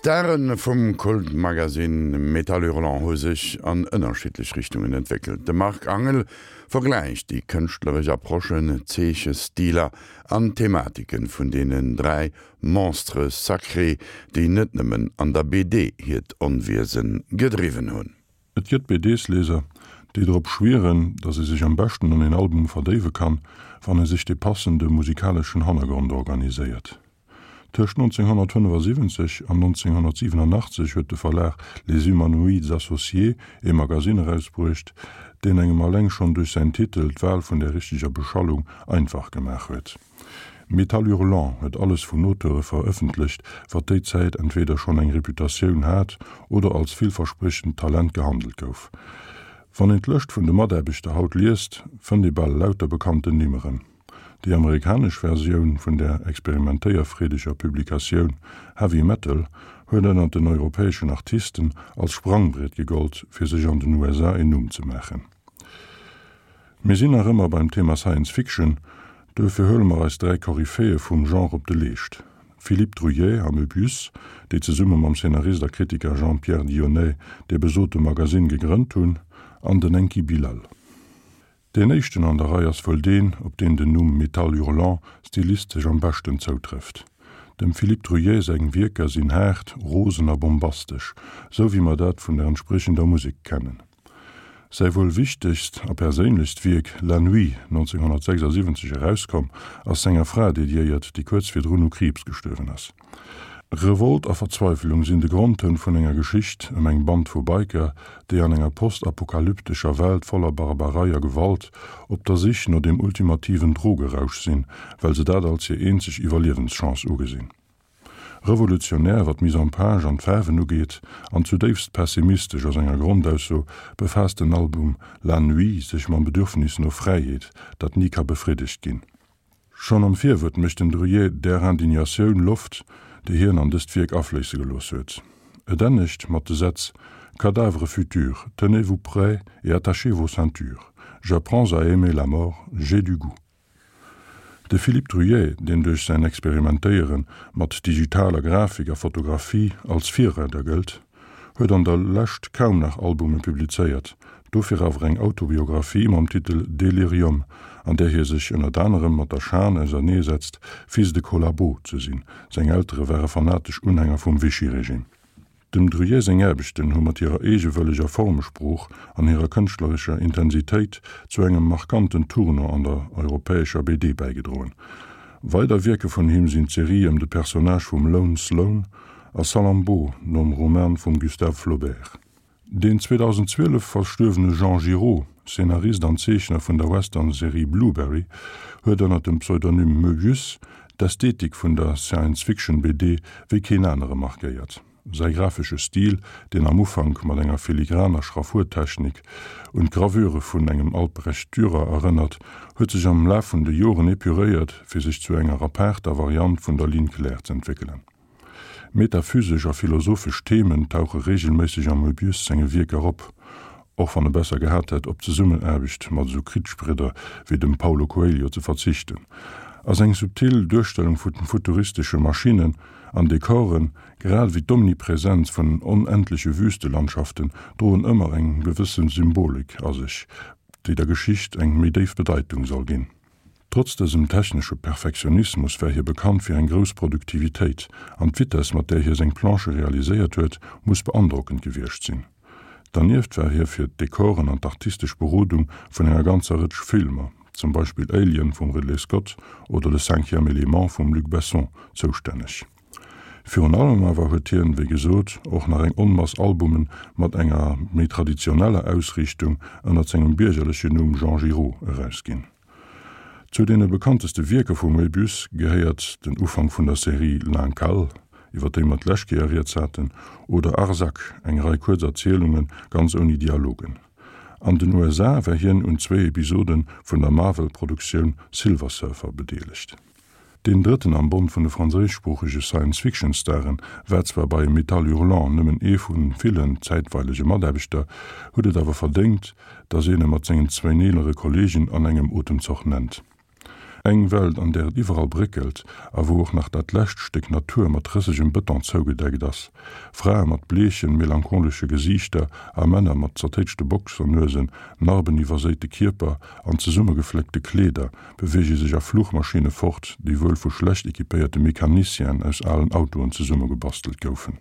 D'Stare vum Kultmagasinn Métal Hurlant hu sech an ënnerschiddlech Richtungen entwéckelt. De Marc Angel vergläicht déi kënschtleresch Approchen, Zeechestiler an Thematiken vun deenen 3 Monstres sacrés, déi net nëmmen an der BD hiert Onwiese gedriwwen hunn. Et gëtt BDs-Lieser, déi drop schwieren, datt ee sech am beschten an een Album verdéiwe kann, wann ee sech de passende musikaleschen Hannergrond organiséiert. Tëscht 1975 an 1987 huet de Verlag Les Humanoïdes Associés ee Magasinn erausbruecht, deen engem alleng schonn duerch säin Titel d'Wal vun der richteger Beschallung einfach gemaach huet. Métal Hurlant huet alles vun Auteure verëffentlecht, wat déi Zäit entweeder schonn eng Reputatioun hat oder als villverspriechend Talent gehandelt gouf. Wann een d'Lëscht vun de Mataarbechter haut liest, fënnt ee bal lauter bekannten Nimm erëm. Déi amerikanesch Versioun vun der experimentéierfreedeger Publikatioun Heavy Metal huet ënnert den europäeschen Artisten als Sprangbriet gegollt, fir sech an den USA een Numm ze maachen. Mir sinn nach ëmmer beim Thema Science Fiction, duerfir huele mer eis 3 Koryphäe vum Genre op de Leescht, Philippe Druillet a Möbius, déi zesumme mam Szenarist a Kritiker Jean-Pierre Dionnet dee besote Magasinn gegrënnt hunn, an den Enki Bilal. Deen éischten an der Rei ass wuel deen, op deen den Numm Métal Hurlant stilistesch am beschten zoutrëfft. Dem Philippe Druillet seng Wierker sinn haart, rosen a bombastesch, sou wéi mer dat vun der entspriechender Musek kennen. Säi wuel wichtegst a perséinlechst Wierk La Nuit, 1976 erauskomm, ass senger Fra dediéiert, déi kuerz virdrun u Kriibs gestuerwen ass. Revolt a Verzweifelung sinn de Grondtoun vun enger Geschicht ëm eng Band vu Biker, déi an enger postapokalyptescher Welt voller Barbarei a Gewalt op der Sich no dem ultimativen Drogerausch sinn, well se dat als hir eenzeg Iwwerliewenschance ugesinn. Revolutionär, wat d'Mise en page an d'Faarwen ugeet, an zudéifst pessimistesch a senger Grondausso, befaasst den Album La Nuit sech mam Bedürfnis no Fräiheet, dat ni ka befriddegt ginn. Schonn am Virwuert mécht den Druillet där Indignatioun Loft, déi hien an dëst Wierk afléisse gelooss huet. Et ennegt mat de Sätz, Cadavres futurs, tenez-vous prêts et attachez vos ceintures, j'apprends à aimer la mort, j'ai du goût. De Philippe Druillet, deen duerch säin Experimentéiere mat digitaler Grafik a Fotografie als Virreider gëllt, huet an der Lescht kaum nach Albume publizéiert, dofir awer eng Autobiographie mam Titel Delirium, an där hie sech ënnert anerem mat der Schan auserneesetzt, Fils de collabo ze sinn, seng Eltere ware fanatesch Unhänger vum Vichy-Regime. Dem Druillet seng Aarbechten hu mat hirer eegewëlleger Formesprooch an hirer kënschtlerescher Intensitéit zu engem markanten Tournant an der europäescher BD bäigedroen. Weider Wierke vun him sinn d'Serie ëm de Personnage vum Lone Sloane a Salammbô nom Roman vum Gustave Flaubert. Deen 2012 verstuerwene Jean Giraud, Szenarist an Zeechner vun der Western-Serie Blueberry, huet ënner dem Pseudonym Möbius d'Ästhetik vun der Science-Fiction-BD wéi keen anere markéiert. Säi grafesche Stil, deen am Ufank mat enger filigraner Schraffurtechnik un d'Gravure vun engem Albrecht Dürer erënnert, huet sech am Laf vun de Joren epuréiert, fir sech zu enger apaarter Variant vun der Ligne claire z'entwéckelen. Metaphysesch a philosophesch Themen tauche reegelméisseg am Möbius senge Wierker op, och wann e besser gehat hätt, op d'Zesummenaarbecht mat esou Kritzbridder wéi dem Paulo Coelho ze verzichten. A seng subtil Duerstellung vu futuristesche Maschinnen an Dekoren, grad ewéi d'Omnipresenz vun onendleche Wüstelandschaften droen ëmmer eng gewësse Symbolik a sech, déi der Geschicht eng méi déif Bedeitung soll ginn. Trotz dësem technesche Perfektionismus war hie bekannt fir eng grouss Produktivitéit, an d'Vitess, mat där hie seng Planchë realiséiert huet, muss beandrockend gewiescht sinn. Dernieft war hie fir d'Dekoren an d'artistesch Berodung vun enger ganzer Rëtsch Filmer, zum Beispill Alien vum Ridley Scott oder Le cinquième élément vum Luc Besson, zoustänneg. Virun allem awer huet hien, wéi gesot, och nach eng Onmass Albumen mat enger méi traditioneller Ausriichtung ënnert sengem biergerlechen Numm Jean Giraud erausginn. Zu deene bekannteste Wierker vum Möbius gehéiert den Ufank vun der Serie L'Incal, iwwer déi mer d'lescht Kéier rieds haten, oder Arzak, eng Rei kuerz Erzielunge ganz ouni Dialogen. An den USA war hien un zwéi Episode vun der Marvel-Produktioun Silver Surfer bedeelegt. Deen drëtten am Bond vun de franséischsproochege Science-Fiction-Staren war zwar bei Métal Hurlant nëmmen ee vu villen zäitweilege Mataarbechter, huet et awer verdéngt, datt een e mat sengen zwéin eelere Kolleegen an engem Otemzoch nennt. Eng Welt, an där et iwwerall bréckelt a wou och nach dat lescht Stéck Natur mat rëssegem Bëton zougedeckt ass. Frae mat bleechen, melancholesche Gesiichter a Männer mat zertéitschte Boxernuesen, narbeniwwerséite Kierper an zesummegefléckte Kleeder beweege sech a Fluchmaschinne fort, déi wuel vu schlecht equipéierte Mecanicienen aus alen Autoen zesummegebastelt goufen.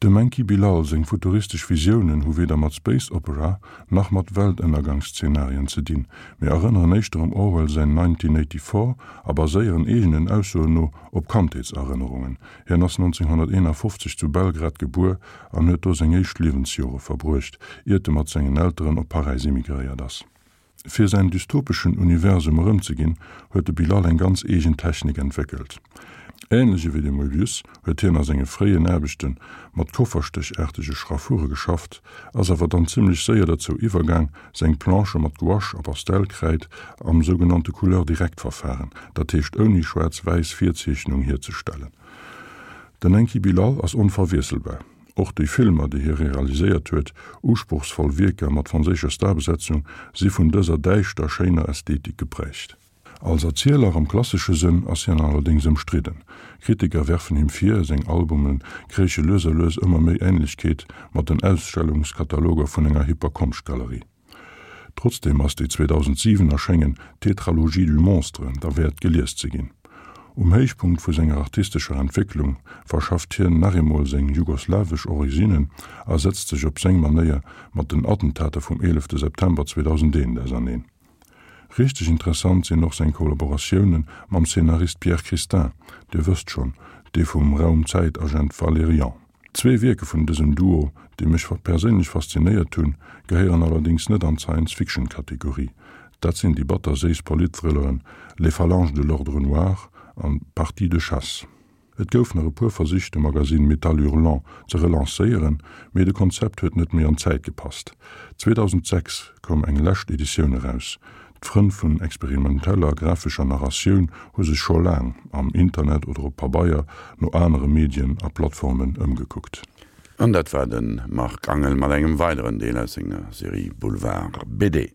Dem Enki Bilal seng futuristesch Visiounen hu weder mat Space Opera nach mat Weltënnergangsszenarien ze dinn, mee erënneren éischter um Orwell säin 1984 a baséieren eegenen Aussoen no op Kandheetserënnerungen. Hien ass 1951 zu Belgrad gebuer an huet do seng éischt Liewensjore verbruecht, iert e mat sengen Elteren op Paräis immigréiert ass. Fir säin dystopeschen Universum erëmzeginn, huet de Bilal eng ganz eegen Technik entwéckelt. Änlech ewéi de Moebius huet hien a senge fréien Aarbechte mat kofferstéchaartege Schraffure geschafft, ass awer dann zimmlech séier derzou iwwergaang, seng Planchë mat Gouache a Pastellkräid am sougenannte Couleur-directe-Verfahren, dat heescht ouni schwaarz-wäiss Virzeechnung, hierzestellen. Den Enki Bilal ass onverwiesselbar. Och déi Filmer, déi hie realiséiert huet, usprochsvoll Wierker mat franséischer Starbesetzung, si vun dëser däischter schéiner Ästhetik geprägt. Als Erzieler am klassesche Sënn ass hien allerdéngs ëmstridden. Kritiker werfen him vir, seng Albume kréiche lues a lues ëmmer méi Änlechkeet mat den Ausstellungskataloger vun enger hipper Konschtgalerie. Trotzdeem ass déi 2007 erschéngen Tétralogie du monstre derwäert gelies ze ginn. Um Héichpunkt vu senger artistescher Entwécklung verschafft hien nach eemol seng jugoslawesch Originnen a setzt sech op seng Manéier mat den Attentater vum 11 September 2001 auserneen. Richteg interessant sinn och seng Kollaboratioune mam Szenarist Pierre Christin, Dir wësst schonn, dee vum Raum-Zäit-Agent Valerian. Zwee Wierke vun dësem Duo, déi mech perséinlech faszinéiert hunn, gehéieren allerdéngs net an d'Science-Fiction-Kategorie. Dat sinn déi batter-séiss Polit-Thrilleren Les Phalanges de l'ordre noir an Partie de chasse. Et gouf nach e puer Versich, de Magasinn Métal Hurlant ze relancéieren, mee de Konzept huet net méi an d'Zäit gepasst. 2006 koum eng lescht Editioun eraus. D'Frënn vun experimenteller grafescher Narratioun hu sech scho laang, am Internet oder op Pabeier, no anere Medien a Plattformen ëmgekuckt. An dat war de Marc Angel mat engem weideren Deel aus senger Serie Boulevard BD.